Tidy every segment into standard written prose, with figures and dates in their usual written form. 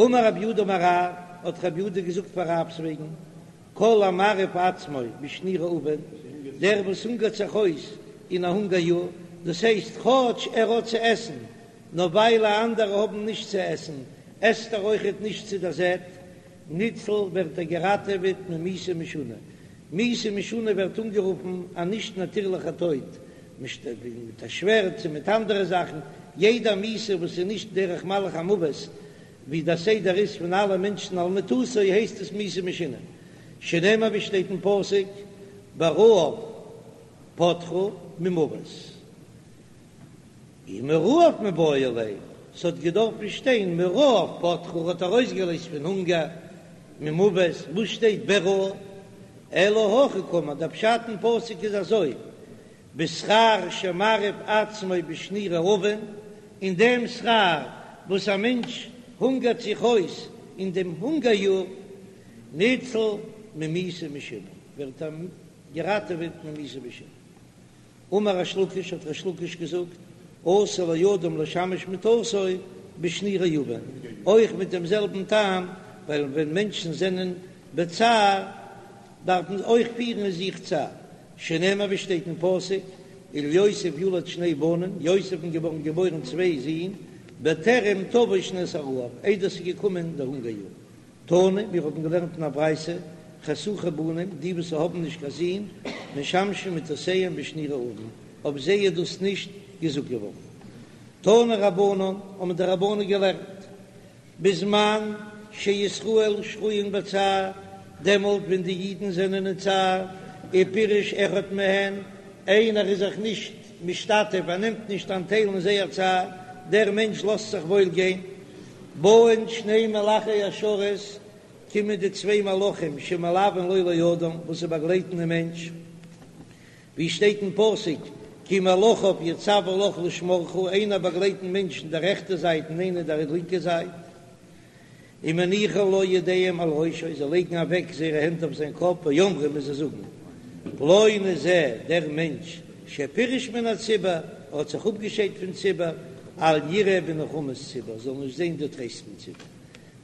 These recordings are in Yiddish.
אמר רב יהודה אמר רב, האט רב יהודה געזאגט פאר רב'ס וועגן, כל המרעיב עצמו בשני רעבון, דער וואס הונגערט זיך אויס אין א הונגער יאר, דאס הייסט כאטש ער האט צו עסן, נאר ווייל אנדערע האבן נישט צו עסן, עסט ער אויכעט נישט צו דער זעט, ניצל ווערט ער געראטעוועט ממיתה משונה. מיתה משונה ווערט אנגערופן א נישט נאטירליכע טויט, מיט א שווערד צו מיט אנדערע זאכן, יעדע מיתה וואס איז נישט דרך מלאך המוות, ווי דער סדר איז פון אלע מענטשן על מיטתו הייסט עס מיתה משונה, שנאמר ווי שטייט אין פסוק ברעב פדך ממות. ומרעב מיבעי ליה, ס'האט געדארפן שטיין מרעב פדך האט ארויסגעלייזט פון הונגער, ממות, וואס שטייט ברעב? אלא הכי קאמר, דער פשט אין פסוק איז אזוי, בשכר שמרעיב עצמו בשני רעבון, אין דעם שכר וואס א מענטש הונגערט זיך אויס אין דעם הונגער יאר, ניצל ממיתה משונה, ווערט ער געראטעוועט ממיתה משונה. אמר ריש לקיש, האט ריש לקיש געזאגט, אסור לאדם לשמש מטתו בשני רעבון, אויך מיט דעם זעלבן טעם, ווייל ווען מענטשן זענען בצער דארף מען אויך פירן אין זיך צער, שנאמר ווי שטייט אין פסוק, וליוסף יולד שני בנים, יוסף'ן געווארן געבוירן צוויי זין, בטרם תבוא שנת הרעב, איידער ס'איז געקומען דער הונגער יאר. תנא, מיר האבן געלערנט אין א ברייתא, חשוכי בנים, די וואס האבן נישט קיין זין, משמשים מטותיהם בשני רעבון, אויף זיי איז דאס נישט געזאגט געווארן. תנו רבנן, האבן די רבנן געלערנט, בזמן שישראל שרויין בצער, דעמאלט ווען די אידן זענען אין צער, ופירש אחד מהן, איינער איז זיך נישט משתתף, ער נעמט נישט אנטייל אין זייער צער, דער מענטש לאזט זיך וואויל גיין, באין שני מלאכי השרת, קומען די צוויי מלאכים שמלווין לו לאדם, וואס זיי באגלייטן דעם מענטש, ווי שטייט אין פסוק, כי מלאכיו יצוה לך לשמרך, איינער באגלייט דעם מענטש אין דער רעכטע זייט און איינער אין דער לינקע זייט. ומניחין לו ידיהם על ראשו, זיי לייגן אוועק זייערע הענט אויף זיין קאפ, ואומרים און זיי זאגן, פלוני זה, דער מענטש, שפירש מן הציבור, ער האט זיך אפגעשיידט פון ציבור, אל יראה בנחמות ציבור, זאל נישט זען די טרייסט פון ציבור.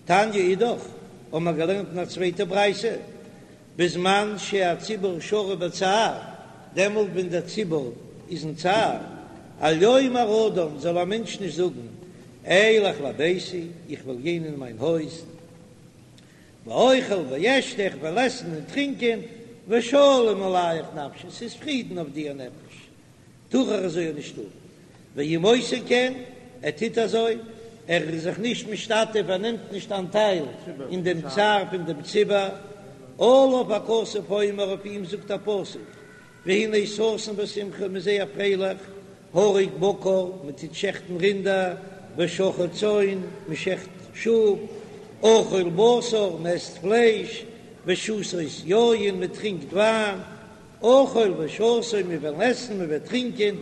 תניא אידך, האבן מיר געלערנט אין א צווייטע ברייתא, בזמן שהציבור שרוי בצער, דעמאלט ווען דער ציבור איז אין צער, אל יאמר אדם, זאל א מענטש נישט זאגן, אלך לביתי, איך וועל גיין אין מיין הויז, ואוכל ואשתה, איך וועל עסן און טרינקען, ושלום עליך נפשי, ס'איז פרידן אויף דיר נפש. טאר ער אזוי נישט טון, ואם עושה כן, ער טוט אזוי, ער איז זיך נישט משתתף, ער נעמט נישט אנטייל אין דעם צער פון דעם ציבור, עליו הכתוב אומר, אויף אים זאגט א פסוק, והנה ששון ושמחה, מ'איז זייער פרייליך, הרוג בקר, מען טוט שעכטן רינדער, ושחט צאן, מען שעכט שאף, אכול בשר, מען עסט פלייש, ושתות יין, מען טרינקט וויין, אכול ושתו, מיר וועלן עסן, מען וועט טרינקען,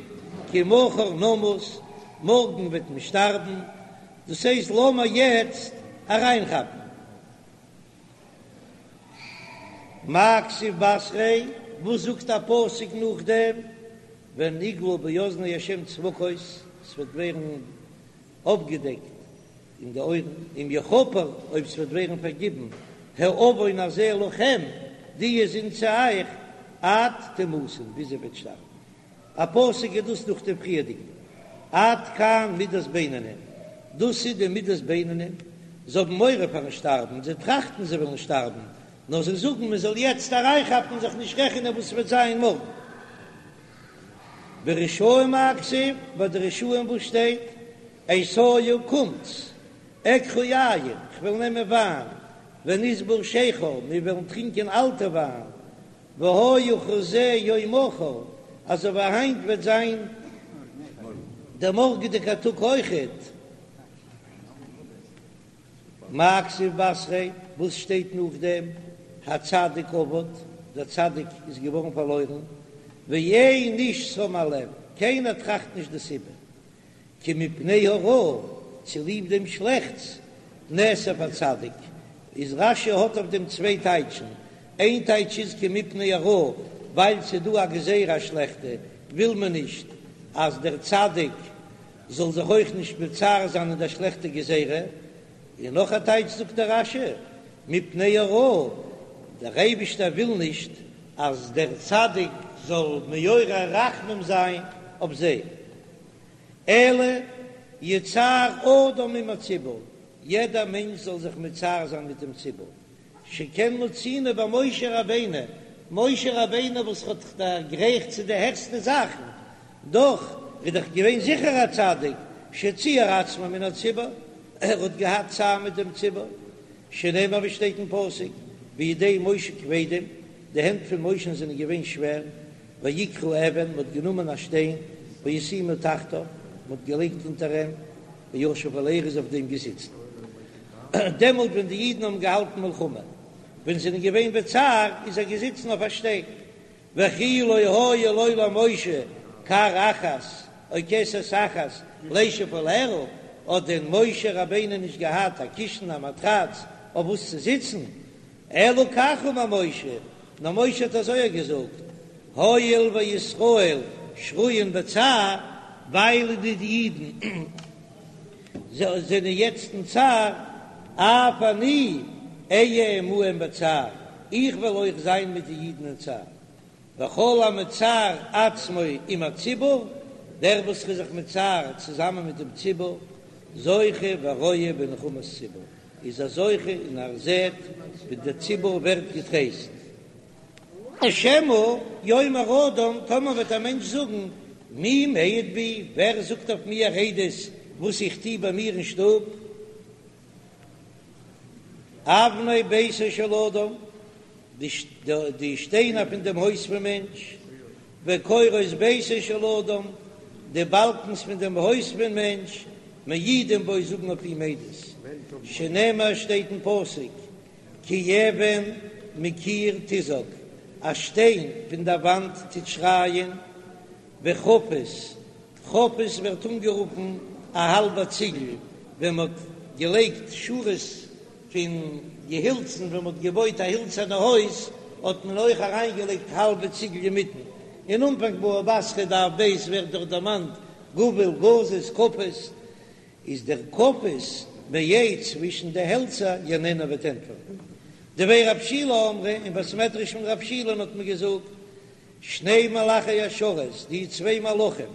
כי מחר נמות, מארגן וועט מען שטארבן, דאס הייסט לאמיר יעצט אריינכאפן. מאי כתיב בתריה, וואס זאגט א פסוק נאכדעם, ונגלה באזני ה' צבקות, ס'וועט ווערן אפגעדעקט אין די אויערן, אם יכפר, אויב ס'וועט ווערן פארגיבן, העון הזה לכם, די זינד צו אייך, עד תמותון, ביז איר וועט שטארבן. א פסוק איז דאס נאך דעם פריערדיגן, עד כאן מידת בינונים, דאס איז די מידת בינונים, זיי האבן מורא פארן שטארבן, זיי טראכטן זיי וועלן שטארבן, נאר זיי זאגן מען זאל יעצט אריינכאפן און זיך נישט רעכענען וואס ס'וועט זיין מארגן. ברשעים מאי כתיב, ביי די רשעים וואס שטייט, אתיו קומטס, אקחה יין, כ'וועל נעמען וויין, ונסבה שכר, מיר וועלן טרינקען אלטע וויין, והיה כזה יום מחר, אזוי ווי היינט וועט זיין דער מארגעדיגער טאג אויכעט. מאי כתיב בתריה, וואס שטייט נאכדעם? הצדיק אבד, דער צדיק איז געווארן פארלוירן, ואין איש שם על לב, קיינער טראכט נישט די סיבה, כי מפני הרעה, צוליב דעם שלעכטס, נאסף הצדיק, איז רש"י האט אויף דעם צוויי טייטשן, איין טייטש איז כי מפני הרעה, ווייל ס'איז דא א גזירה א שלעכטע, וויל מען נישט אז דער צדיק זאל זיך אויך נישט מצער זיין אין דער שלעכטע גזירה. און נאך א טייטש זאגט דער רש"י, מפני הרעה, דער אייבישטער וויל נישט אז דער צדיק זאל מעורר רחמים זיין אויף זיי, אלא יצער אדם עם הציבור, יעדער מענטש זאל זיך מצער זיין מיט דעם ציבור, שכן מצינו במשה רבינו, משה רבינו וואס האט דערגרייכט צו די העכסטע זאכן, דאך איז דאך געווען זיכער א צדיק, שציער עצמו מן הציבור, ער האט געהאט צער מיט דעם ציבור, שנאמר ווי שטייט אין פסוק, וידי משה כבדים, די הענט פון משה'ן זענען געווען שווער, ויקחו אבן, מען האט גענומען א שטיין, וישימו תחתיו, מען האט געלייגט אונטער אים, וישב עליה, ער איז אויף דעם געזיצן. דעמאלט ווען די אידן האבן געהאלטן מלחמה, ווען זיי זענען געווען בצער, איז ער געזיצן אויף א שטיין. וכי לא היה לו למשה כר אחת או כסת אחת לישב עליה, האט דען משה רבינו נישט געהאט א קישן א מאטראץ אויף וואס צו זיצן? אלא כך אמר משה, נאר משה האט אזוי געזאגט, הואיל וישראל שרויין בצער, ווייל די אידן זענען יעצט אין צער, אף אני אהיה עמהם בצער, איך וועל אויך זיין מיט די אידן אין צער. וכל המצער עצמו עם הציבור, דער וואס איז זיך מצער צוזאמען מיט דעם ציבור, זוכה ורואה בנחמת ציבור, איז ער זוכה און ער זעט ווי דער ציבור ווערט געטרייסט. שמא יאמר אדם, טאמער וועט א מענטש זאגן, מי מעיד בי, ווער זאגט אויף מיר עדות וואס איך טו ביי מיר אין שטוב? אבני ביתו של אדם, די שטיינער פון דעם הויז פון מענטש, וקורות ביתו של אדם, די באלקנס פון דעם הויז פון מענטש, מעידים בו, זאגן אויף אים עדות, שנאמר שטייט אין פסוק, כי אבן מקיר תזעק, א שטיין פון דער וואנט טוט שרייען, וחפיס, חפיס ווערט אנגערופן א האלבע ציגל, ווען מען האט געלייגט שורות פון געהילצן, ווען מען האט געבויט א הילצערנע הויז, האט מען אויך אריינגעלייגט האלבע ציגל אינמיטן. אין אנפאנג בבא בתרא דף ב' ווערט דאך דערמאנט גוול, גזית, כפיס. איז דער כפיס מעץ צווישן די העלצער יעננה וועט ענטפערן. דבי רב שילא אמרי, אין בית מדרש פון רב שילא'ן האט מען געזאגט, שני מלאכי השרת, די צוויי מלאכים,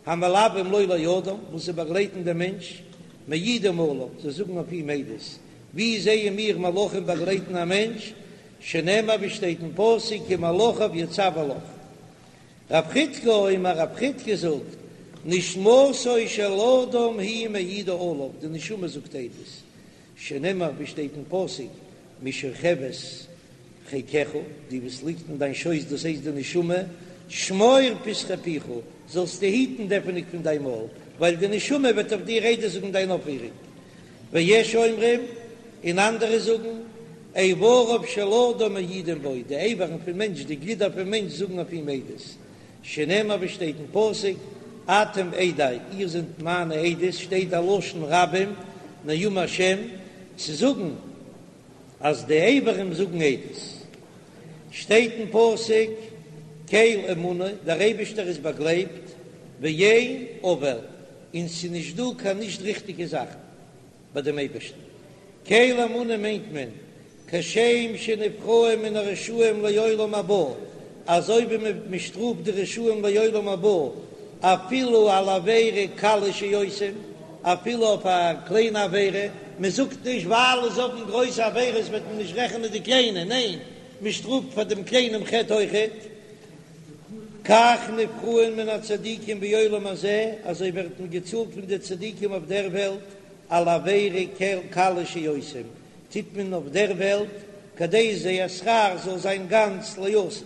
המלווים לו לאדם, וואס זיי באגלייטן דעם מענטש, מעידים עליו, זיי זאגן אויף אים עדות. ווי זעען מיר מלאכים באגלייטן א מענטש? שנאמר ווי שטייט אין פסוק כי מלאכיו יצוה לך. רב חידקא אומר, רב חידקא זאגט, נשמתו של אדם היא מעידה עליו, די נשמה זאגט עדות, שנאמר ווי שטייט אין פסוק, משכבת חיקך, די וואס ליגט אין דיין שויס דאס הייסט די נשמה, שמור פתחי פיך, זאלסטו היטן די עפענונג פון דיין מויל, ווייל די נשמה וועט אויף דיר עדות זאגן דיין אויפפירונג. ויש אומרים, און אנדערע זאגן, איבריו של אדם מעידים בו, די איברים פון מענטש, די גלידער פון מענטש זאגן אויף אים עדות, שנאמר ווי שטייט אין פסוק, אתם עדי, איר זענט מיינע עדות, שטייט א לשון רבים, נאום השם, צו זאגן אז די איברים זאגן עדות. שטייט אין פסוק, קל אמונה, דער אייבישטער איז באגלייבט, ואין עול, און ס'איז נישט דא קיין נישט ריכטיגע זאכן ביי דעם אייבערשטן. קל אמונה מיינט מען, כשם שנפרעים מן הרשעים לעולם הבא, אזוי ווי מען שטראפט די רשעים לעולם הבא, אפילו על עבירה קלה שעושים, אפילו אויף א קליינע עבירה, מען זאגט נישט ווייל זיי האבן גרויסע עבירות וועט מען נישט רעכענען די קליינע, ניין, מען שטראפט פאר דעם קליינעם חטא אויכעט. כך נפרעין מן הצדיקים בעולם הזה, אזוי ווערט מען געצאלט פון די צדיקים אויף דער וועלט, על עבירה קלה שעושים, טוט מען אויף דער וועלט, כדי זייער שכר זאל זיין גאנץ לעתיד.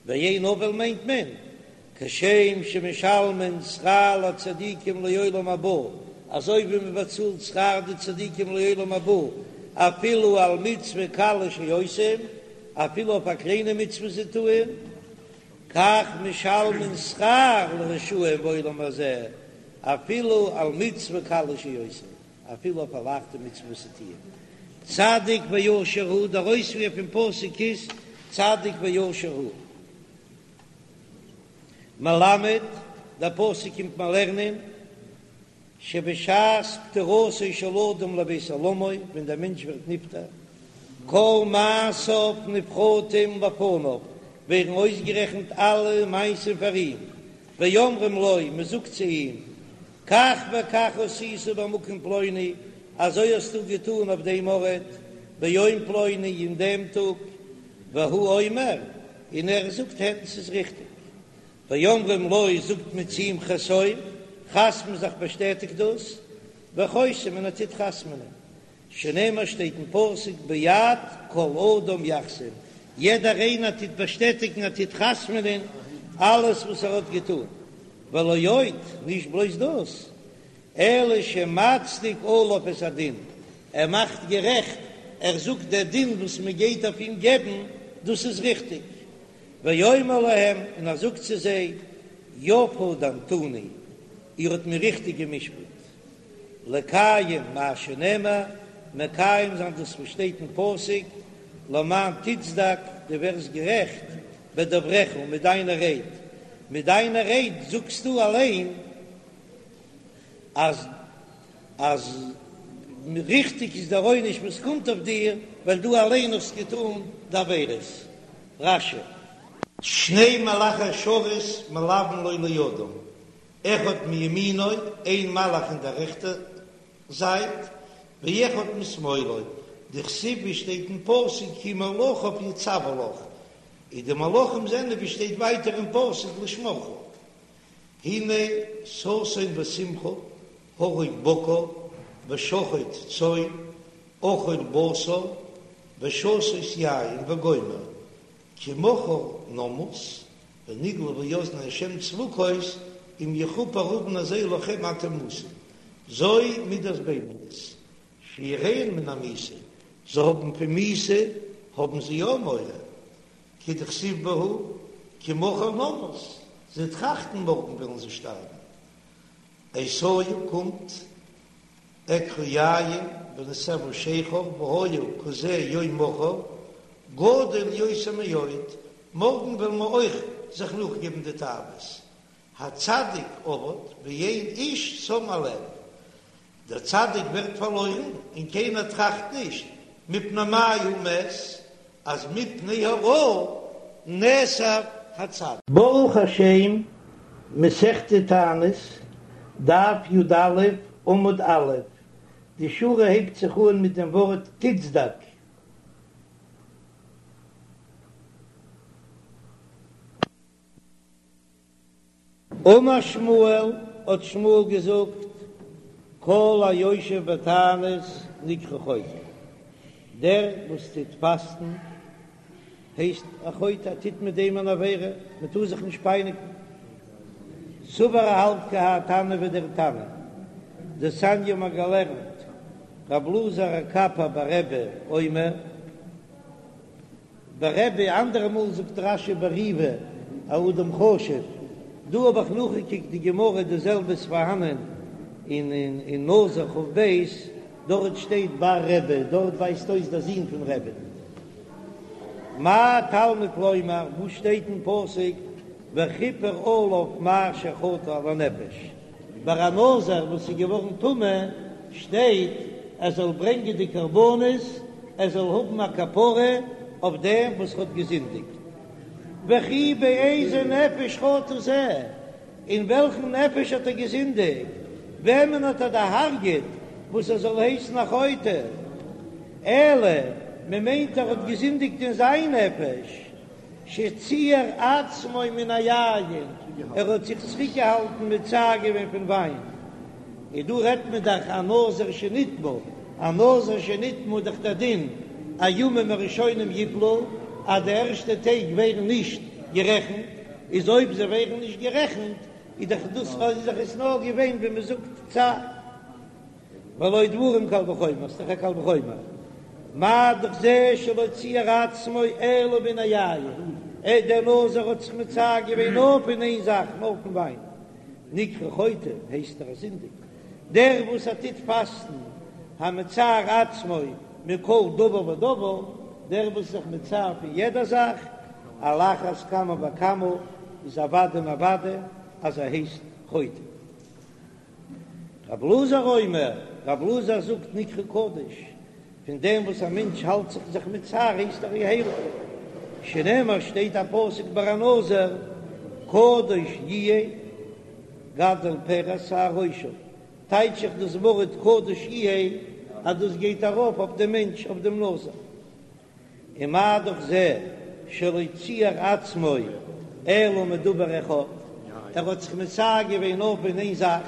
ואין עול מיינט מען, כשם שמשלמין שכר לצדיקים לעולם הבא, אזוי ווי מען באצאלט שכר די צדיקים לעולם הבא, אפילו על מצוה קלה שעושים, אפילו אויף א קליינע מצוה זיי טוען, כך משלמין שכר לרשעים בעולם הזה, אפילו על מצוה קלה שעושים, אפילו אויף א לייכטע מצוה וואס זיי טוען. צדיק וישר הוא, דער אויספיר פון פסוק איז צדיק וישר הוא. מלמד, דער פסוק קומט מיר לערנען. שבשעת פטירתו של אדם לבית עולמו, ווען דער מענטש ווערט נפטר, כל מעשיו נפרטים לפניו, ווערן אויסגערעכנט אלע מעשים פאר אים, ואומרים לו, מען זאגט צו אים, כך וכך עשית במקום פלוני, אזוי האסטו געטאן אויף דעם ארט, ביום פלוני, אין דעם טאג, והוא אומר, און ער זאגט הן, ס'איז ריכטיג. ואומרים לו, זאגט מען צו אים חתום, חתמ'ע זיך באשטעטיג דאס, וחותם און ער טוט חתמ'נען, שנאמר שטייט אין פסוק בעד כל אדם יחתום, יעדער איינער טוט באשטעטיגן ער טוט חתמ'נען אלעס וואס ער האט געטון, ולא עוד, נישט בלויז דאס, אלא שמצדיק עליו את הדין, ער מאכט גערעכט, ער זאגט דער דין וואס מען גייט אויף אים געבן, דאס איז ריכטיג, ואומר להם, און ער זאגט צו זיי, יפה דנתוני, איר האט מיר ריכטיג גע'משפט, לקיים מה שנאמר, מקיים זיין דאס וואס שטייט אין פסוק, למען תצדק, דו ווערסט גערעכט, בדבריך, מיט דיינע רייד, מיט דיינע רייד זאגסטו אליין אז אז ריכטיג איז דער עונש וואס קומט אויף דיר, ווייל דו אליין האסט געטאן די עבירות. רש"י. שני מלאכי השרת מלוין לו לאדם, אחד מימינו, איין מלאך אין דער רעכטער זייט, ואחד משמאלו, דכתיב ווי שטייט אין פסוק כי מלאכיו יצוה לך, און די מלאכים זענען ווי שטייט ווייטער אין פסוק לשמרך. הנה ששון ושמחה, הרוג בקר, ושחוט צאן, אכול בשר, ושתות יין וגומר, כי מחר נמות, ונגלה באזני השם צבקות, אם יכופר עון הזה לכם עד תמותון. זו מידת בינונית, שיראין מן המיתה, זיי האבן פון מיתה האבן זיי יא מורא, כדכתיב בהו, כי מחר נמות, זיי טראכטן מארגן וועלן זיי שטארבן. אתיו קומט אקחה יין ונסבה שכר והיה כזה יום מחר גדול יותר מאוד, מארגן וועלן מיר אויך זיך נאכגעבן די תאוות. הצדיק אבד ואין איש שם על לב, דער צדיק ווערט פארלוירן און קיינער טראכט נישט מפני מה הוא מת, אז מפני הרעה נאסף הצדיק. ברוך השם, מסכת תענית, דף י"א, עמוד א', די שורה הייבט זיך אן מיט דעם ווארט תצדק. אמר שמואל, האט שמואל געזאגט, כל היושב בתענית נקרא חוטא, דער וואס טוט פאסטן הייסט א חוטא, ער טוט מיט דעם אן עבירה, מען טאר זיך נישט פייניגן. סבר ער האלט כי האי תנא ווי דער תנא דתניא מ'האט געלערנט רב אלעזר הקפר ברבי אומר, ברבי, אנדערע מאל זאגט רש"י בריבא א אדם חשוב, דא האב איך נאכגעקוקט די גמרא די זעלבע איז פארהאנען אין אין נזיר כ"ב, דארט שטייט בר רבי, דארט ווייזט אויס דער זון פון רבי. מה תלמוד לומר, וואס שטייט אין פסוק וכפר עליו מאשר חטא על הנפש, ביי א נזיר וואס איז געווארן טמא שטייט ער זאל ברענגען די קרבנות, ער זאל האבן א כפרה אויף דעם וואס האט געזינדיגט. וכי באיזה נפש חטא זה, אין וועלכן נפש האט ער געזינדיגט, וועמען האט ער דערהרגעט וואס ער זאל הייסן א חוטא? אלא מען מיינט ער האט געזינדיגט אין זיין נפש. שציער עצמו מן היין, ער האט זיך צוריקגעהאלטן מצער געווען פון וויין. און דא רעדט מען דאך א נזיר שנטמא, א נזיר שנטמא איז דאך דער דין הימים הראשונים יפלו, אז די ערשטע טעג ווערן נישט גערעכנט, איז אויב זיי ווערן נישט גערעכנט איז דאך דאס איז דאך עס נאר געווען ווי מען זאגט צער. והלא דברים קל וחומר, ס'איז דאך א קל וחומר, מה דאך זה שלא ציער עצמו אלא מן היין, ער דער נזיר האט זיך מצער געווען נאר פון איין זאך, נאר פון וויין, נקרא חוטא, הייסט ער א זינדיגער, דער וואס ער טוט פאסטן, המצער עצמו מכל דבר ודבר, דער וואס איז זיך מצער פון יעדע זאך, על אחת כמה וכמה, איז אוודאי און אוודאי אז ער הייסט חוטא. רב אלעזר אומר, רב אלעזר זאגט נקרא קדוש, פון דעם וואס א מענטש האלט זיך זיך מצער הייסט ער הייליג, שנאמר שטייט א פסוק ביי א נזיר, קדוש יהיה גדל פרע שער ראשו, טייטש איך דאס ווארט קדוש יהיה אז דאס גייט ארויף אויף דעם מענטש אויף דעם נזיר. ומה דאך זה שלא ציער עצמו אלא מדבר אחד, ער האט זיך מצער געווען נאר פון איין זאך,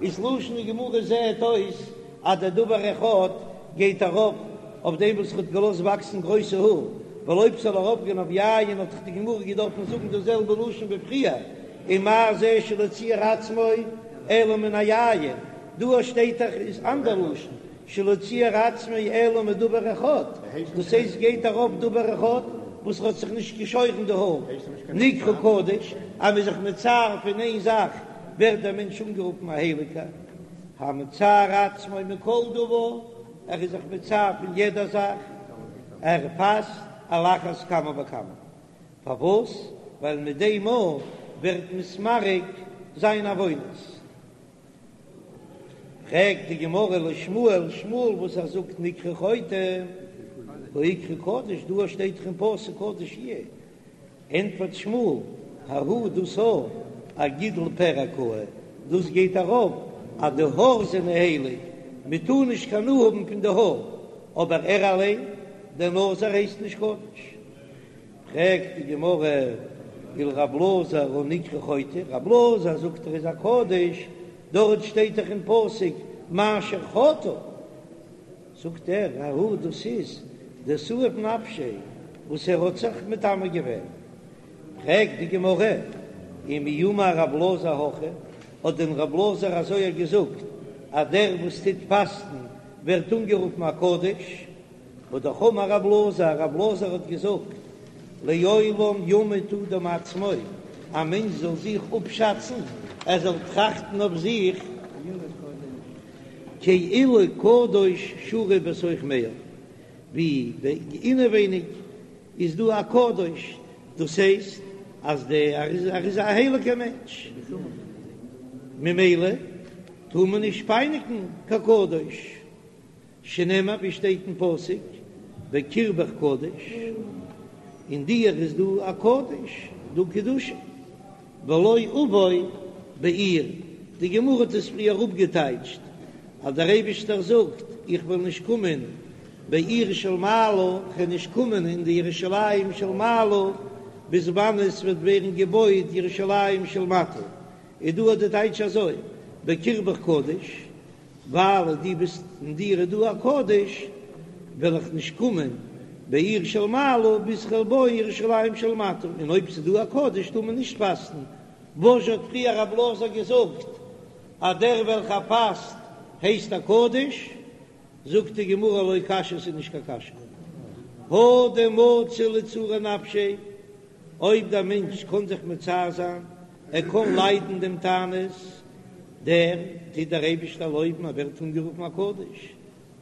איז לשון הגמרא זעהט אויס אז דער דבר אחד גייט ארויף אויף דעם וואס ער האט געלאזט וואקסן גרויסע האר, ווייל אויב ס'זאל ארויפגיין אויף יין האט דאך די גמרא געדארפן זאגן דאס זעלבע לשון ווי פריער, ומה זה שלא ציער עצמו אלא מן היין, דא שטייט דאך איז אנדער לשון, שלא ציער עצמו אלא מדבר אחד, דאס הייסט גייט ארויף דבר אחד וואס האט זיך נישט געשוירן די האר, נקרא קדוש, אז מ'איז זיך מצער פון איין זאך ווערט דער מענטש אנגערופן א הייליגער, המצער עצמו מכל דבר, ער איז זיך מצער פון יעדע זאך, ער פאסט על אחת כמה וכמה, פארוואס? ווייל מיט דעם מאל ווערט מתמרק זיין עוונות. פרעגט די גמרא לשמואל, שמואל וואס ער זאגט נקרא חוטא, והא איקרי קדוש, דא שטייט דאך אין פסוק קדוש יהיה, ענטפערט שמואל, ההוא דאס א אגידול פרע קאי, דאס גייט ארויף אז די האר זענען הייליג, מען טאר נישט קיין הנאה האבן פון די האר, אבער ער אליין, דער נזיר הייסט נישט קדוש. פרעגט די גמרא, ולר' אלעזר הא נקרא חוטא, ר' אלעזר זאגט ער איז א קדוש, דארט שטייט דאך אין פסוק מאשר חטא, זאגט ער, ההוא דאס איז דסאיב נפשיה וואס ער האט זיך מטמא געווען. פרעגט די גמרא, ומי אמר ר' אלעזר הכי, האט דען ר' אלעזר אזוי געזאגט אז דער וואס טוט פאסטן ווערט אנגערופן א קדוש? והא דאך אמר רב אלעזר, רב אלעזר האט געזאגט, לעולם ימוד אדם עצמו, א מענטש זאל זיך אפשאצן, ער זאל טראכטן אויף זיך, כאילו קדוש שרוי בתוך מעיו, ווי אינעווייניג איז דא א קדוש, דאס הייסט אז ער איז א הייליגער מענטש, ממילא טאר מען נישט פייניגן קיין קדוש. שנאמר ווי שטייט אין פסוק בקרבך קדוש, אין דיר איז דא א קדוש, דא קדושה, ולא אבוא בעיר, די גמרא האט עס פריער אפגעטייטשט אז דער אייבישטער זאגט איך וועל נישט קומען בעיר של מעלה, איך וועל נישט קומען אין די ירושלים של מעלה, ביז וואנען עס וועט ווערן געבויט ירושלים של מטה, איז דא די טייטש אזוי בקרבך קדוש, ווייל דו ביסט אין דיר איז דא א קדוש, וועל איך נישט קומען בעיר של מעלה ביז כ'וועל בויען ירושלים של מטה, און אויב ס'איז דא א קדוש טאר מען נישט פאסטן, וואס האט פריער רב אלעזר געזאגט אז דער וועלכער פאסט הייסט א קדוש, זאגט די גמרא לא קשיא ס'איז נישט קיין קשיא, הא דמצי לצעורי נפשיה, אויב דער מענטש קען זיך מצער זיין, ער קען ליידן דעם תענית, דער טוט דער אייבישטער לויבן, ער ווערט אנגערופן א קדוש,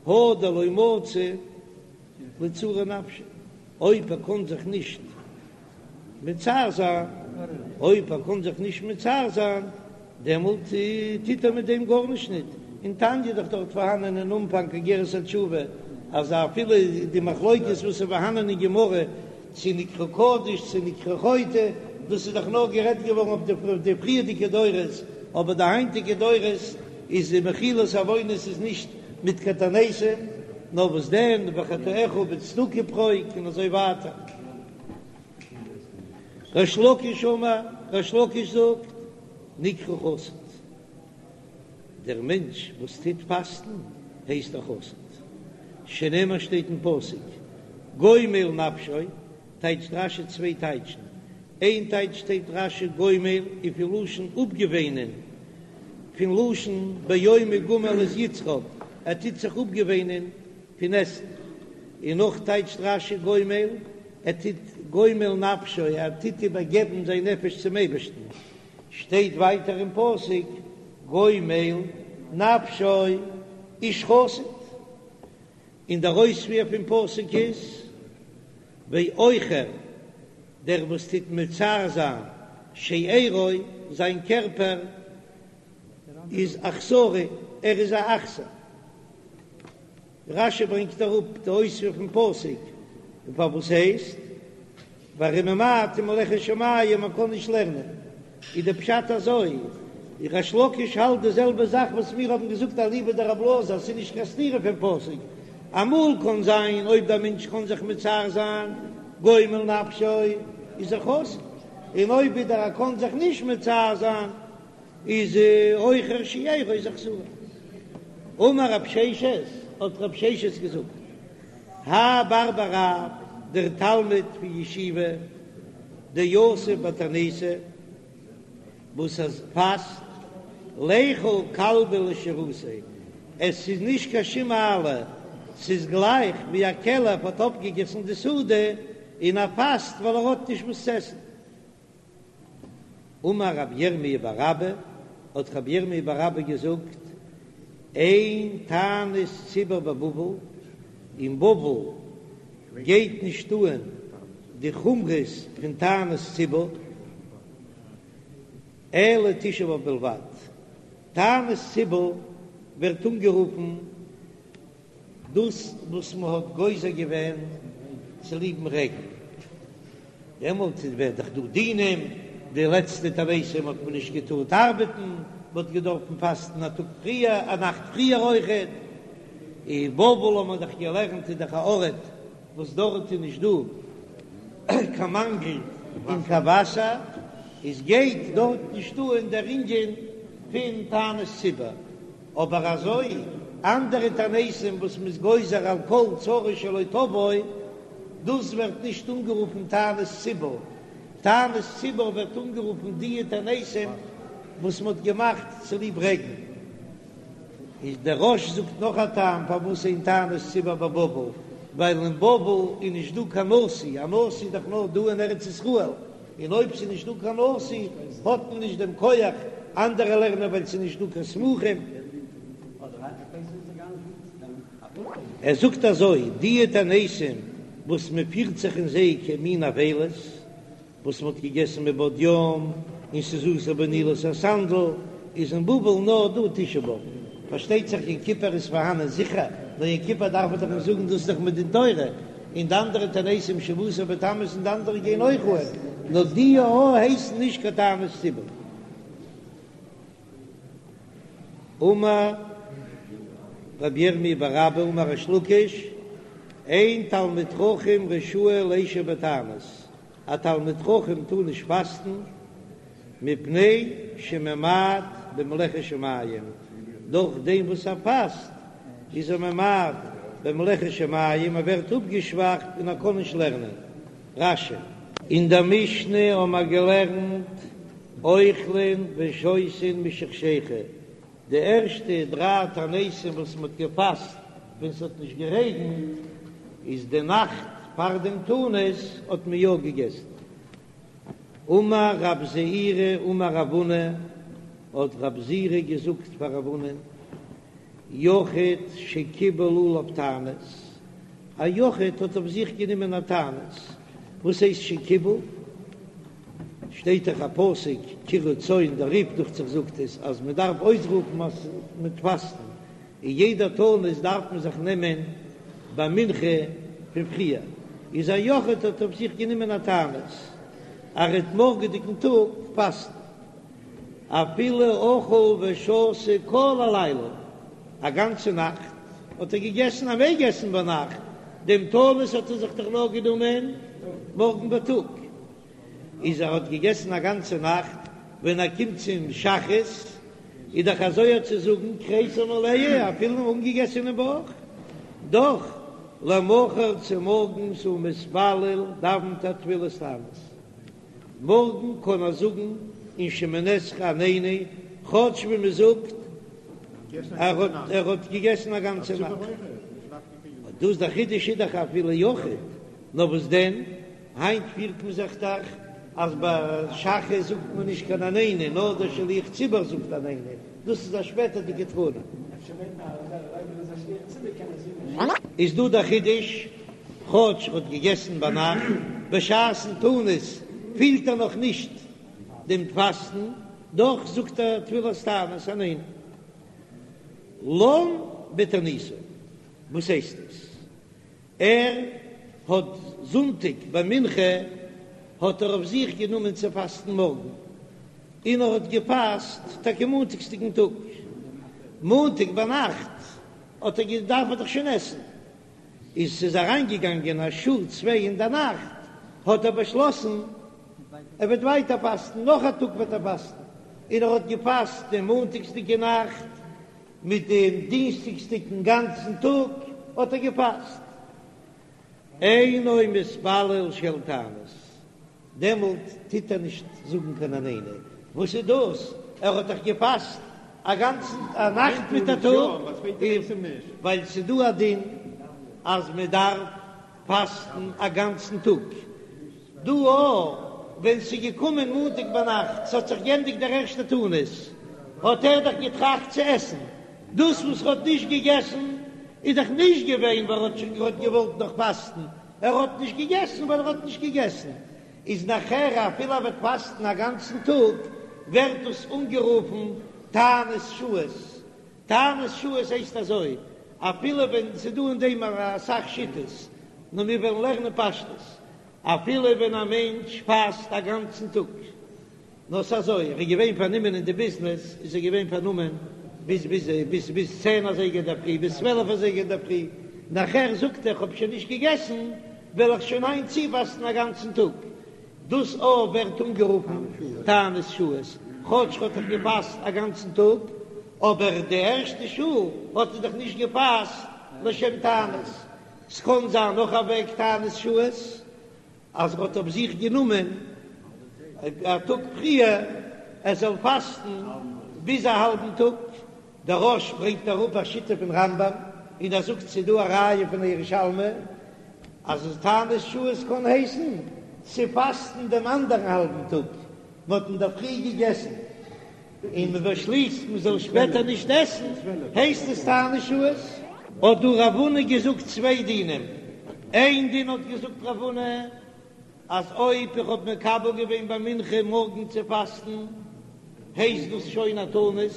הא דלא מצי לצעורי נפשיה, אויב ער קען זיך נישט מצער זיין, אויב ער קען זיך נישט מצער זיין, דעמאלט טוט ער מיט דעם גארנישט ניט. אין תניא איז דאך דארט פארהאנען אין אנפאנג אגרת התשובה, אז אפילו די מחלוקת וואס איז פארהאנען אין גמרא, צו נקרא קדוש צו נקרא חוטא, דאס איז דאך נאר גערעדט געווארן אויף די פריערדיגע דורות, אבער די היינטיגע דורות איז די מחילת עוונות איז נישט מיט קיין תעניתים, נאר וואס דען, וחטאך בצדקה פרוק און אזוי ווייטער. ריש לקיש אמר, ריש לקיש זאגט, נקרא חסיד, דער מענטש וואס טוט פאסטן הייסט א חסיד, שנאמר שטייט אין פסוק, גומל נפשו, טייטשט רש"י צוויי טייטשן, איין טייטש שטייט רש"י גומל איז פון לשון אפגעוואינען, פון לשון ביום הגמל את יצחק, ער טוט זיך אפגעוואינען פון עסן, און נאך טייטשט רש"י גומל, ער טוט גומל נפשו, ער טוט איבערגעבן זיין נפש צום אייבערשטן, שטייט ווייטער אין פסוק גומל נפשו איש חסיד, און דער אויספיר פון פסוק איז ועוכר, דער וואס טוט מצער זיין שארו, זיין קערפער איז אכזרי. ער איז א אכזר. רש"י ברענגט אראפ די אויספיר פון פסוק, און פארוואס הייסט ווארום ממעט אין מלאכת שמים מען קען נישט לערנען, איז די פשט אזוי, ריש לקיש האלט די זעלבע זאך וואס מיר האבן געזאגט אליבא דרבי אלעזר אז ס'איז נישט קיין סתירה פון פסוק, אמאל קען זיין אויב דער מענטש קען זיך מצער זיין גומל נפשו איז ער חסר, און אויב ווידער ער קען זיך נישט מצער זיין איז עוכר שארו איז אכזרי. אמר רב ששת, האט רב ששת געזאגט, האי בר בי רב, דער תלמיד פון ישיבה, דיתיב בתעניתא, וואס ער פאסט, ליכול כלבא לשירותיה, עס איז נישט קיין שום מעלה, ס'איז גלייך ווי א כלב האט אויפגעגעסן די סעודה, און ער פאסט ווייל ער האט נישט וואס צו עסן. אמר רב ירמי' בר אבא, האט רב ירמי' בר אבא געזאגט, אין תענית ציבור בבבל, אין בבל גייט נישט אהן די חומרות פון תענית ציבור, אלא תשעה באב בלבד. תענית ציבור ווערט אנגערופן דאס וואס מען האט גוזר געווען צוליבן רעגן, דעמאלט איז ווערט דאך דא דינים, די לעצטע תעניתים האט מען נישט געטארט ארבעטן, מען האט געדארפן פאסטן א טאג פריער, א נאכט פריער אויכעט, אין בבל האט מען דאך געלערנט איז דאך א ארט וואס דארט איז נישט דא קיין מאנגל אין קיין וואסער, איז גייט דארט נישט אן דער ענין פון תענית ציבור. אבער אזוי אנדערע תעניתים וואס מ'איז גוזר על כל צרה שלא תבוא, דאס ווערט נישט אנגערופן תענית ציבור, תענית ציבור ווערט אנגערופן דיע תעניתים וואס מ'האט געמאכט צוליב רעגן. איז דער רא"ש זאגט נאך א טעם פארוואס אין תענית ציבור בבבל, ווייל אין בבל איז נישט דא קיין נשיא, א נשיא איז דאך נאר דא אין ארץ ישראל, און אויב ס'איז נישט דא קיין נשיא האט מען נישט דעם כח, אנדערע לערנען ווייל ס'איז נישט דא קיין סמוכים. ער זאגט אזוי, דיע תעניתים וואס מען פירט זיך אין זיי כמין אבילות, וואס מען האט געגעסן מבעוד יום, און ס'איז אסור בנעילת הסנדל, איז אין בבל נאר דא תשעה באב. פארשטייט זיך יום כיפור איז פארהאנען זיכער, נאר יום כיפור דארף מען דאך נישט זאגן דאס איז דאך מדין תורה, און די אנדערע תעניתים שבעה עשר בתמוז און די אנדערע גייען אויך אן, נאר די א הייסן נישט קיין תענית ציבור. אמר רבי ירמי' בר אבא אמר ריש לקיש, אין תלמיד חכם רשאי לישב בתענית, א תלמיד חכם טאר נישט פאסטן, מפני שממעט במלאכת שמים, דורך דעם וואס ער פאסט איז ער ממעט במלאכת שמים, ער ווערט אפגעשוואכט און ער קען נישט לערנען. רש"י. אין דער משנה האבן מיר געלערנט אוכלין ושותין משחשיכה, די ערשטע דריי תעניתים וואס מען האט געפאסט ווען ס'האט נישט גערעגנט, איז די נאכט פאר דעם תענית האט מען יא געגעסן. אמר רב זעירא אמר רב הונא, האט רב זעירא געזאגט פאר רב הונא, יחיד שקיבל עליו תענית, א יחיד האט אויף זיך גענומען א תענית, וואס הייסט שקיבל? שטייט דאך א פסוק קראו צום, דער רי"ף דוכט זיך זאגט עס אז מען דארף אויסרופן אז מ'טוט פאסטן, און יעדע תענית דארף מען זיך נעמען ביי מנחה פון פריער, איז א יחיד האט אויף זיך גענומען א תענית אז ער וועט מארגעדיגן טאג פאסטן, אפילו אכל ושתה כל הלילה, א גאנצע נאכט האט ער געגעסן, ער מעג עסן ביינאכט, דעם תענית האט ער זיך דאך נאר גענומען מארגן בייטאג. איז ער האט געגעסן א גאנצע נאכט, ווען ער קומט צום שחרית איז דאך אזוי צו זאגן כריסו מלאה אפילו אן אנגעגעסענעם בויך, דאך למחר צומארגנס הוא מתפלל דאווענט ער תפילת תענית, מארגן קען ער זאגן אין שמונה עשרה עננו, כאטש ווי מען זאגט ער האט ער האט געגעסן א גאנצע נאכט, דאס דער חידוש איז דאך אפילו יחיד, נאר וואס דען? היינט פירט מען זיך דאך אז ביי שחרית זאגט מען נישט קיין עננו, נאר דער שליח ציבור זאגט עננו, דאס איז א שפעטערדיגע תקנה. איז דא דער חידוש, כאטש ער האט געגעסן ביינאכט, בשעת'ן תענית פילט ער נאך נישט דעם פאסטן, דאך זאגט ער תפילת תענית עננו. לן בתעניתו. וואס הייסט עס? ער האט זונטאג ביי מנחה האט ער אויף זיך גענומען צו פאסטן מארגן, און ער האט געפאסט טאקע מאנטאגסדיגן טאג, מאנטאג ביינאכט האט ער געדארפט דאך שוין עסן, איז ס'איז אריינגעגאנגען א שעה צוויי אין די נאכט, האט ער באשלאסן ער וועט ווייטער פאסטן, נאך א טאג וועט ער פאסטן, און ער האט געפאסט דעם מאנטאגסדיגע נאכט מיט דעם דינסטאגסדיגן גאנצן טאג האט ער געפאסט. אינו מתפלל של תענית, דעמאלט טוט ער נישט זאגן קיין עננו, וואס איז דאס? ער האט דאך געפאסט א גאנצן א נאכט מיט א טאג, ווייל ס'איז דא א דין אז מען דארף פאסטן א גאנצן טאג, דא אויך, ווען ס'איז געקומען מאנטאג ביינאכט, ס'האט זיך גענדיגט דער ערשטער תענית, האט ער דאך געטראכט צו עסן, דאס וואס ער האט נישט געגעסן איז דאך נישט געווען ווייל ער האט שוין געהאט געוואלט נאך פאסטן, ער האט נישט געגעסן ווייל ער האט נישט געגעסן, איז נאכער אפילו ער וועט פאסטן א גאנצן טאג, ווערט דאס אנגערופן תענית שעות, תענית שעות הייסט אזוי, אפילו ווען ס'איז דא אין דעם אסאך שיטות, נאר מיר וועלן לערנען פשטות, אפילו ווען א מענטש פאסט א גאנצן טאג, נאר ס'איז אזוי, ער איז געווען פארנומען אין די ביזנעס, איז ער געווען פארנומען ביז ביז ביז ביז צען אזייגער אינדערפרי, ביז צוועלף אזייגער אינדערפרי, נאכער זאגט ער כ'האב שוין נישט געגעסן, וועל איך שוין היינט צופאסטן א גאנצן טאג. דאס אויך ווערט אנגערופן תענית שעות, כאטש ר'האט דאך געפאסט א גאנצן טאג, אבער די ערשטע שעה האט ער דאך נישט געפאסט לשם תענית. ס'קען זיין נאך א וועג תענית שעות, אז ער האט אויף זיך גענומען א טאג פריער ער זאל פאסטן ביז א האלבן טאג, דער רא"ש ברענגט אראפ א שיטה פון רמב"ם און ער זאגט ס'איז דא א ראיה פון א ירושלמי אז תענית שעות קען הייסן צו פאסטן דעם אנדערן האלבן טאג, מ'האט אינדערפרי געגעסן און מען באשליסט מען זאל שפעטער נישט עסן, הייסט עס תענית שעות? האט דא רב הונא געזאגט צוויי דינים, איין דין האט געזאגט רב הונא אז אויב איך האב מקבל געווען ביי מנחה מארגן צו פאסטן הייסט דאס שוין א תענית,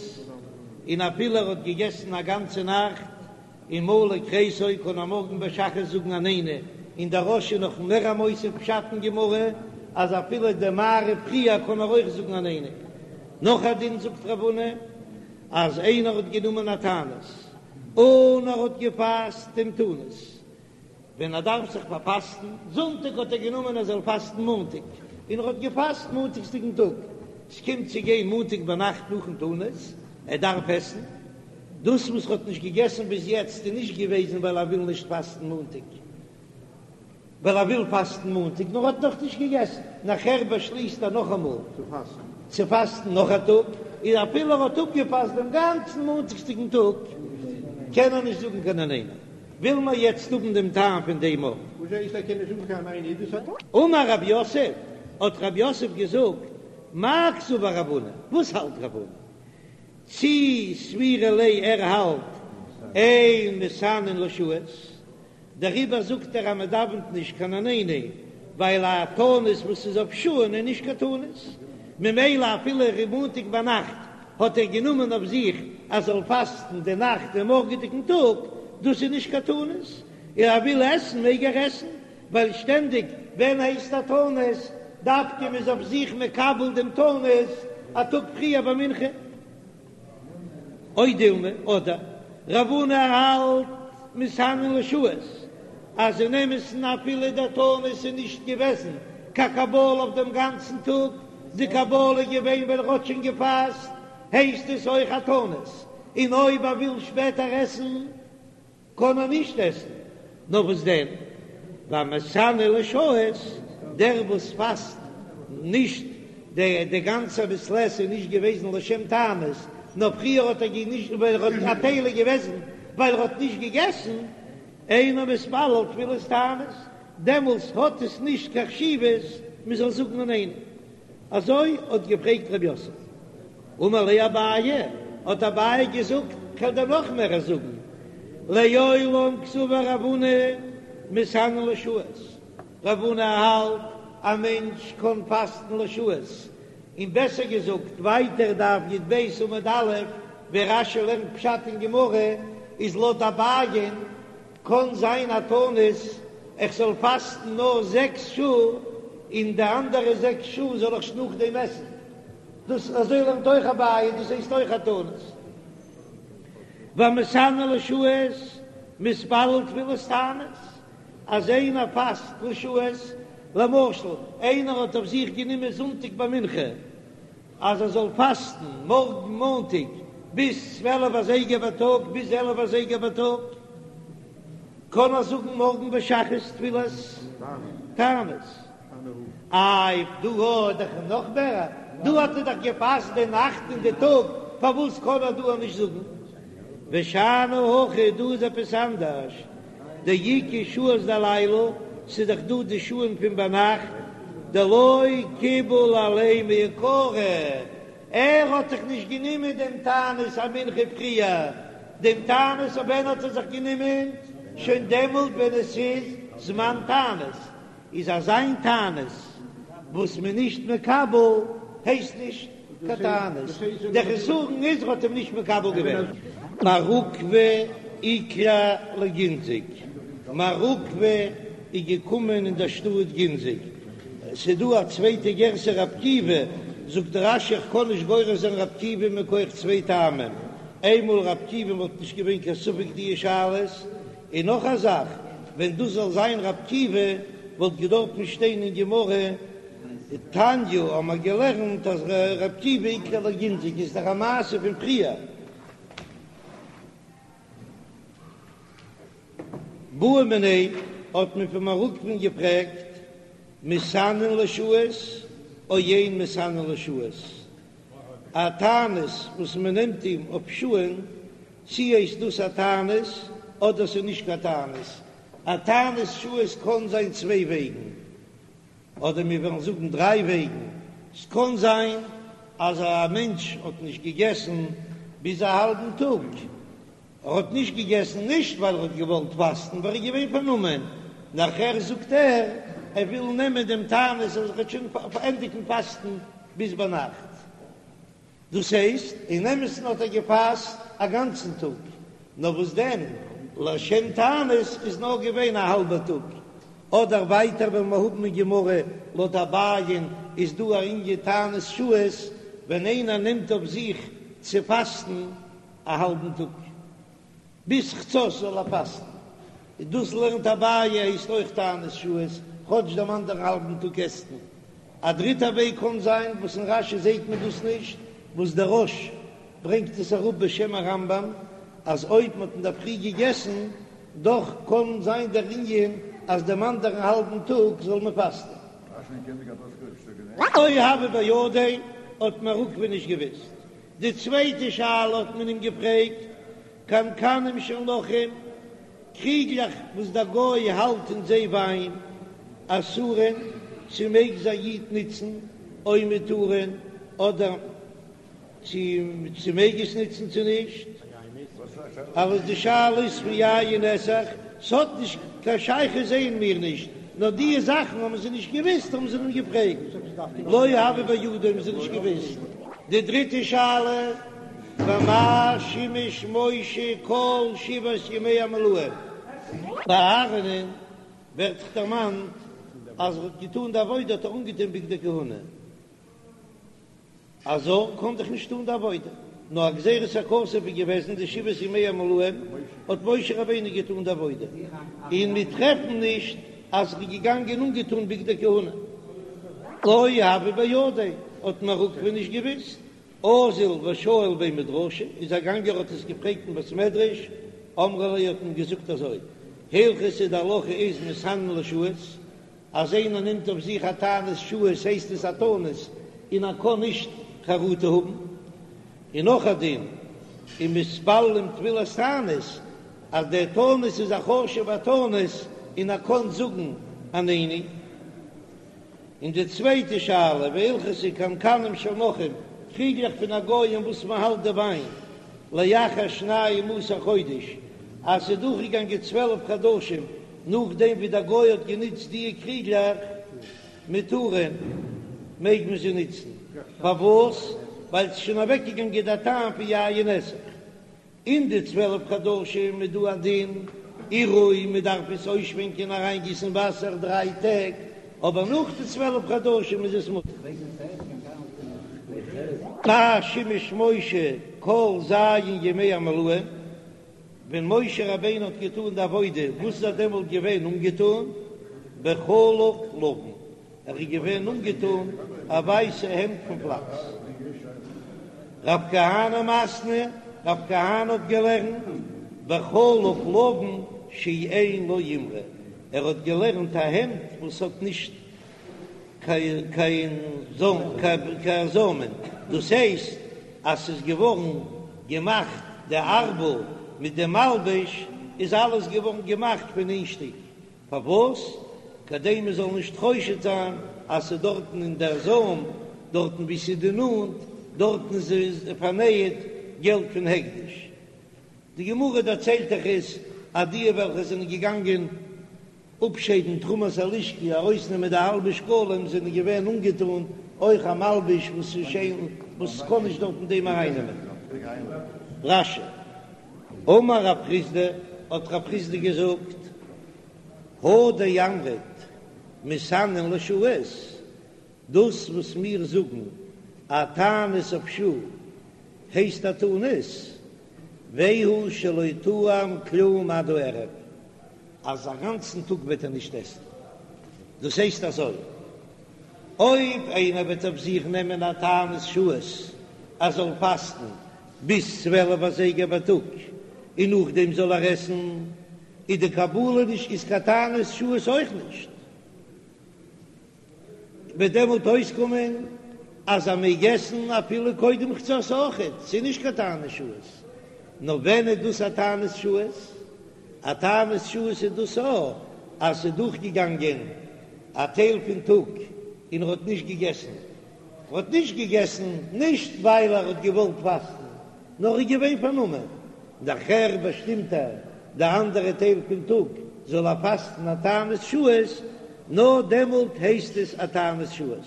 און אפילו ער האט געגעסן א גאנצע נאכט און מלא כריסו קען ער מארגן ביי שחרית זאגן עננו, און דער רא"ש איז נאך מער א מוסיף פשט אין גמרא אז אפילו די מעריב פריער קען ער אויך זאגן עננו. נאך א דין זאגט רב הונא אז איינער האט גענומען א תענית און ער האט געפאסט דעם תענית ווען ער דארף זיך פארפאסטן, זונטאג האט ער גענומען ער זאל פאסטן מאנטאג, און ער האט געפאסט מאנטאגסדיגן טאג, ס'קומט צו גיין מאנטאג ביינאכט נאכן תענית, ער דארף עסן, דאס וואס ער האט נישט געגעסן ביז יעצט איז נישט געוועזן ווייל ער וויל נישט פאסטן מאנטאג, ווייל ער וויל פאסטן מאנטאג, נאר ער האט נאך נישט געגעסן, נאכער באשליסט ער נאכאמאל צו פאסטן נאך א טאג, און אפילו ער האט אפגעפאסט דעם גאנצן מאנטאגסדיגן טאג, קען ער נישט זאגן קיין עננו. וויל מען יעצט האבן דעם טעם פון דעם אויך. וואס הייסט ער קען נישט זאגן קיין עננו דאס האט. אמר רב יוסף, האט רב יוסף געזאגט, מאי קסבר רב הונא, וואס האלט רב הונא? צי סבירא ליה ער האלט אין מתענין לשעות, דעריבער זאגט ער אז מען דאווענט נישט קיין עננו, ווייל א תענית וואס איז אויף שעה'ן איז נישט קיין תענית, ממילא אפילו מאנטאג ביינאכט האט ער גענומען אויף זיך אז זאל פאסטן די נאכט און מארגעדיגן טאג, דאס איז נישט קיין תענית, און ער וויל עסן מעג ער עסן, ווייל שטענדיג ווען הייסט א תענית דווקא מ'איז אויף זיך מקבל דעם תענית א טאג פריער ביי מנחה. או דילמא, אדער רב הונא האלט מתענין לשעות, אז אין אמת'ן אפילו דער תענית איז נישט געוועזן קיין קבלה אויף דעם גאנצן טאג, די קבלה איז געווען ווען ער האט שוין געפאסט, הייסט עס אויך א תענית, און אויב ער וויל שפעטער עסן קען ער נישט עסן, נאר וואס דען, והמתענה לשעות, דער וואס פאסט נישט די די גאנצע מעת לעת איז נישט געוועזן לשם תענית, נאר פריער האט ער נישט ווייל ער האט א טייל איז געוועזן ווייל ער האט נישט געגעסן, אינו מתפלל תפילת תענית, דעמאלס האט עס נישט קיין חשיבות מען זאל זאגן עננו. אזוי האט געפרעגט רב יוסף. אמר ליה אביי, האט אביי געזאגט, כ'וועל דיר נאך מער זאגן, לעולם קסבר רב הונא מתענין לשעות, רב הונא האלט א מענטש קען פאסטן לשעות, און בעסער געזאגט ווייטער דף י"ב עמוד א'. ווי רש"י לערנט פשט אין גמרא, איז לויט אביי'ן קען זיין א תענית איך זאל פאסטן נאר זעקס שעה און די אנדערע זעקס שעה זאל איך נאכדעם עסן, דאס אזוי לערנט אויך אביי, דאס הייסט אויך א תענית. והמתענה לשעות מתפלל תפילת תענית, אז איינער פאסט לשעות, למשל איינער האט אויף זיך גענומען זונטאג ביי מנחה אז ער זאל פאסטן מארגן מאנטאג ביז צוועלף אזייגער בייטאג ביז עלף אזייגער בייטאג, קען ער זאגן מארגן ביי שחרית תפילת תענית. איי דא האט דאך נאך מער, דא האט ער דאך געפאסט די נאכט און די טאג, פארוואס קען ער דא נישט זאגן? ושאני הכא, דא איז עפעס אנדערש, דאיכא שעות דלעילא, ס'איז דאך דא די שעה'ן פון ביינאכט, דלא קיבל עליה מעיקרא, ער האט זיך נישט גענומען דעם תענית א מנחה פריער, דעם תענית אויף ווען האט ער זיך גענומען? שוין דעמאלט ווען עס איז זמן תענית, איז אזא תענית וואס מען נישט מקבל הייסט נישט קיין תענית, דער חסרון איז ער האט אים נישט מקבל געווען. מר עוקבא איקלע לגינזק, מר עוקבא איז געקומען אין דער שטאט גינזק, ס'איז דא א צווייטע גירסא רב עקיבא, זאגט רש"י איך קען נישט גורס זיין רב עקיבא מכח צוויי טעמים, איינמאל רב עקיבא וואלט נישט געווען קיין ספק די שאלות, און נאך א זאך, ווען דאס זאל זיין רב עקיבא וואלט געדארפן שטיין אין גמרא, תניא האבן מיר געלערנט אז רב עקיבא איקלע לגינזק איז דאך א מעשה פון פריער. בעו מיניה האט מען פון מר עוקבא'ן געפרעגט, מתענין לשעות או אין מתענין לשעות, א תענית וואס מען נעמט אים אויף שעה'ן, צי הייסט דאס א תענית אדער ס'איז נישט קיין תענית? א תענית שעות קען זיין צוויי וועגן, אדער מיר וועלן זאגן דריי וועגן, ס'קען זיין אז א מענטש האט נישט געגעסן ביז א האלבן טאג, ער האט נישט געגעסן נישט ווייל ער האט געוואלט פאסטן, ווייל ער איז געווען פארנומען, נאכער זאגט ער ער וויל נעמען דעם תענית אז ער וועט שוין ענדיגן פאסטן ביז ביינאכט. דאס הייסט, אין אמת'ן האט ער געפאסט א גאנצן טאג, נאר וואס דען, לשם תענית איז נאר געווען א האלבע טאג. אדער ווייטער וועלן מיר האבן אין גמרא, לויט אביי'ן איז דא א ענין תענית שעות, ווען איינער נעמט אויף זיך צו פאסטן א האלבן טאג. ביז חצות זאל ער פאסטן, און דאס לערנט אביי הייסט אויך תענית שעות, כאטש דעם אנדערן האלבן טאג עסט מען. א דריטע וועג קען זיין, וואס אין רש"י זעט מען דאס נישט, וואס דער רא"ש ברענגט עס אראפ בשם הרמב"ם, אז אויב מען האט אינדערפרי געגעסן, דאך קען זיין דער ענין אז דעם אנדערן האלבן טאג זאל מען פאסטן. לא הוה בידיה האט מר עוקבא נישט געוואוסט. די צווייטע שאלה האט מען אים געפרעגט, קנקנים של נכרים, קריגלעך וואס דער גוי האלט אין זיי וויין, אסורין, צו מעג זיי א איד נוצן, או מותרין, אדער צו צו מעג עס נוצן צו נישט? אלעס די שאלה איז פון יין נסך, ס'האט נישט קיין שייכות זעען מיר נישט, נאר דיע זאכן האבן זיי נישט געוויסט האבן זיי אים געפרעגט, לא הוה בידיה האבן זיי נישט געוויסט. די דריטע שאלה, במה שימש משה כל שבעת ימי המילואים? ביי אהרן'ען ווערט דאך דערמאנט אז ער האט געטאן די עבודה האט ער אנגעטון בגדי כהונה, א זר קען דאך נישט טון די עבודה, נאר א גזירת הכתוב איז געוועזן די שבעת ימי המילואים האט משה רבינו געטון די עבודה, און מיר טרעפן נישט אז ער איז געגאנגען אנגעטון בגדי כהונה. לא הוה בידיה, האט מר עוקבא נישט געוויסט, אזל ושאיל בי מדרשא, איז ער געגאנגען האט עס געפרעגט אין בית מדרש, אמרו ליה האט מען געזאגט אזוי, הלכתא די הלכה איז מתענין לשעות, אז איינער נעמט אויף זיך א תענית שעות הייסט עס א תענית און ער קען נישט חרטה האבן. און נאך א דין, ומתפללים תפילת תענית, אז דער תענית איז א חשוב'ע תענית און ער קען זאגן עננו. און די צווייטע שאלה, והלכתא קנקנים של נכרים, קריגלעך פון א גוי אין וואס מען האלט די וויין, לאחר שנים עשר חודש, אז ס'איז דורכגעגאנגען 12 חדשים נאכדעם ווי דער גוי האט גענוצט דיע קריגלעך, מותרין, מעג מען זיי נוצן. פארוואס? ווייל ס'איז שוין אוועקגעגאנגען דער טעם פון יין נסך. אין די 12 חדשים איז דא א דין עירוי, מען דארף עס אויסשווענקען אריינגיסן וואסער דריי טעג, אבער נאך די 12 חדשים איז עס מותר. מה שימש משה כל ז' ימי המילואים, ווען משה רבינו האט געטאן די עבודה, וואס איז ער דעמאלט געווען אנגעטאן? בחלוק לבן, ער איז געווען אנגעטאן א ווייסע העמד פון פלאקס. רב כהנא מתני, רב כהנא האט געלערנט בחלוק לבן שאין לו אימרא, ער האט געלערנט א העמד וואס האט נישט קיין זוימען, דאס הייסט אז ס'איז געווארן געמאכט די ארבל מיט די מלבוש איז אלעס געווארן געמאכט פון איין שטיק, פארוואס? כדי מען זאל נישט חושד זיין אז ס'איז דארטן אין דער זוים, דארטן וואו ס'איז די נאט, דארטן איז פארנייעט געלט פון הקדש. די גמרא דערציילט דאך עס אז די וועלכע זענען געגאנגען אפשיידן תרומת הלשכה, ארויסנעמען די האלבע שקלים, זענען געווען אנגעטאן אויך א מלבוש וואס איז שיין, וואס קען נישט דארטן דעם ארייננעמען. רש"י. אמר רב חסדא, האט רב חסדא געזאגט, הא דאמרת מתענין לשעות, דאס וואס מיר זאגן א תענית אויף שעה הייסט א תענית, והוא שלא טעם כלום עד הערב, אז א גאנצן טאג וועט ער נישט עסן, דאס הייסט אזוי, אויב איינער וועט אויף זיך נעמען א תענית שעות ער זאל פאסטן ביז 12 אזייגער בייטאג און נאכדעם זאל ער עסן, איז די קבלה נישט איז קיין תענית שעות אויך נישט, וועט דעמאלט אויסקומען אז ער מעג עסן אפילו קודם חצות אויכעט, ס'איז נישט קיין תענית שעות. נאר ווען איז דאס א תענית שעות? א תענית שעות איז דאס א אז ס'איז דורכגעגאנגען א טייל פון טאג און ער האט נישט געגעסן, ער האט נישט געגעסן נישט ווייל ער האט געוואלט פאסטן, נאר ער איז געווען פארנומען, נאכער באשטימט ער די אנדערע טייל פון טאג זאל ער פאסטן א תענית שעות, נאר דעמאלט הייסט עס א תענית שעות.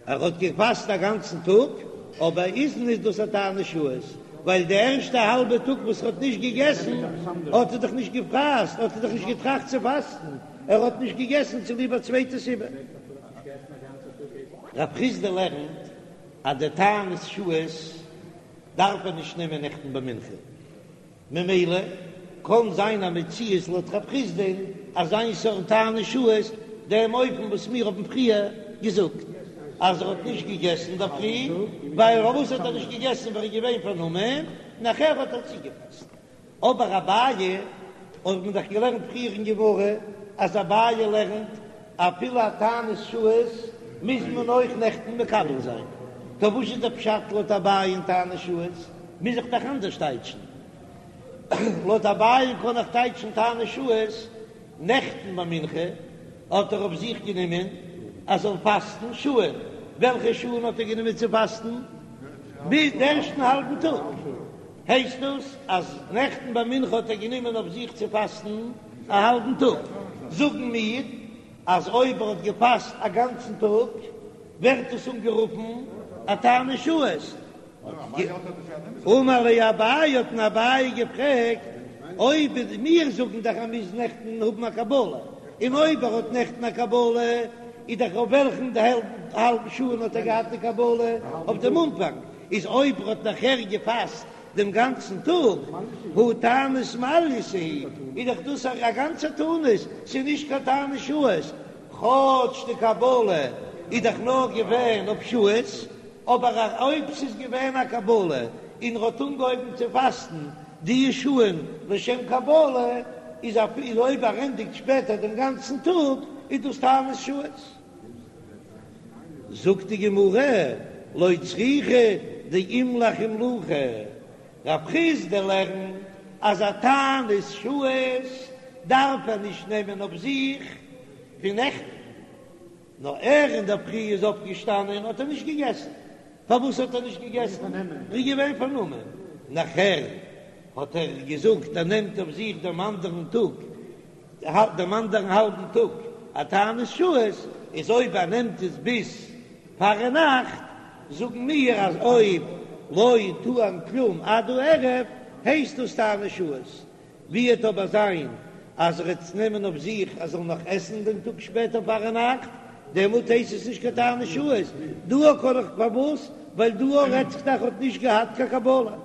ער האט געפאסט א גאנצן טאג, אבער איז נישט דאס א תענית שעות, ווייל די ערשטע האלבע טאג וואס ער האט נישט געגעסן האט ער דאך נישט געפאסט, האט ער דאך נישט געטראכט צו פאסטן, ער האט נישט געגעסן צוליב א צווייטע סיבה. רב חסדא לערנט אז די תענית שעות דארף ער נישט נעמען נעכטן ביי מנחה, ממילא קען זיין א מציאות לויט רב חסדא'ן אז איין סארט תענית שעות, דעם אופן וואס מיר האבן פריער געזאגט אז ער האט נישט געגעסן אינדערפרי, ווייל פארוואס האט ער נישט געגעסן ווייל ער איז געווען פארנומען, נאכער האט ער צוגעפאסט. אבער אביי האט מען דאך געלערנט פריער אין גמרא אז אביי לערנט אפילו א תענית שעות מוז מען אויך נעכטן מקבל זיין, טא וואס איז דער פשט לויט אביי אין תענית שעות? מוז איך דאך אנדערש טייטשן. לויט אביי קען איך טייטשן תענית שעות, נעכטן ביי מנחה האט ער אויף זיך גענומען אז זאל פאסטן שעה, וועלכע שעה'ן האט ער גענומען צו פאסטן? ביז די ערשטן האלבן טאג. הייסט דאס אז נעכטן ביי מנחה האט ער גענומען אויף זיך צו פאסטן א האלבן טאג? זאגן מיר אז אויב ער האט געפאסט א גאנצן טאג ווערט עס אנגערופן א תענית שעות. אמר ליה אביי האט אים אביי געפרעגט אויב מיר זאגן דאך אז מ'מוז נעכטן האבן א קבלה, און אויב ער האט נעכטן א קבלה איז דאך אויף וועלכן האלבן שעה האט ער געהאט די קבלה? אויף דעם אנפאנג. איז אויב ער האט נאכער געפאסט דעם גאנצן טאג, הא תענית מעלייתא היא, איז דאך דאס א גאנצע תענית, ס'איז נישט קיין תענית שעות, כאטש די קבלה איז דאך נאר געווען אויף שעות, אבער אויב ס'איז געווען א קבלה און ער האט אנגעהויבן צו פאסטן די שעה'ן לשם קבלה, איז אפילו אויב ער ענדיגט שפעטער דעם גאנצן טאג, איז דאס תענית שעות. זאגט די גמרא, לא צריכא דאימליך אימלוכי, רב חסדא לערנט אז א תענית שעות דארף ער נישט נעמען אויף זיך פון נעכטן, נאר ער אינדערפרי איז אויפגעשטאנען האט ער נישט געגעסן, פארוואס האט ער נישט געגעסן? ער איז געווען פארנומען, נאכער האט ער געזאגט ער נעמט אויף זיך דעם אנדערן טאג דעם אנדערן האלבן טאג א תענית שעות, איז אויב ער נעמט עס ביז. פארנאכט, זאגן מיר אז אויב לא טעם כלום עד הערב הייסט דאס תענית שעות, ווי וועט אבער זיין אז ער וועט נעמען אויף זיך ער זאל נאך עסן דעם טאג שפעטער פארנאכט, דעמאלט הייסט עס נישט קיין תענית שעות, דא קען איך פארוואס? ווייל דא רעדט זיך דאך האט נישט געהאט קיין קבלה.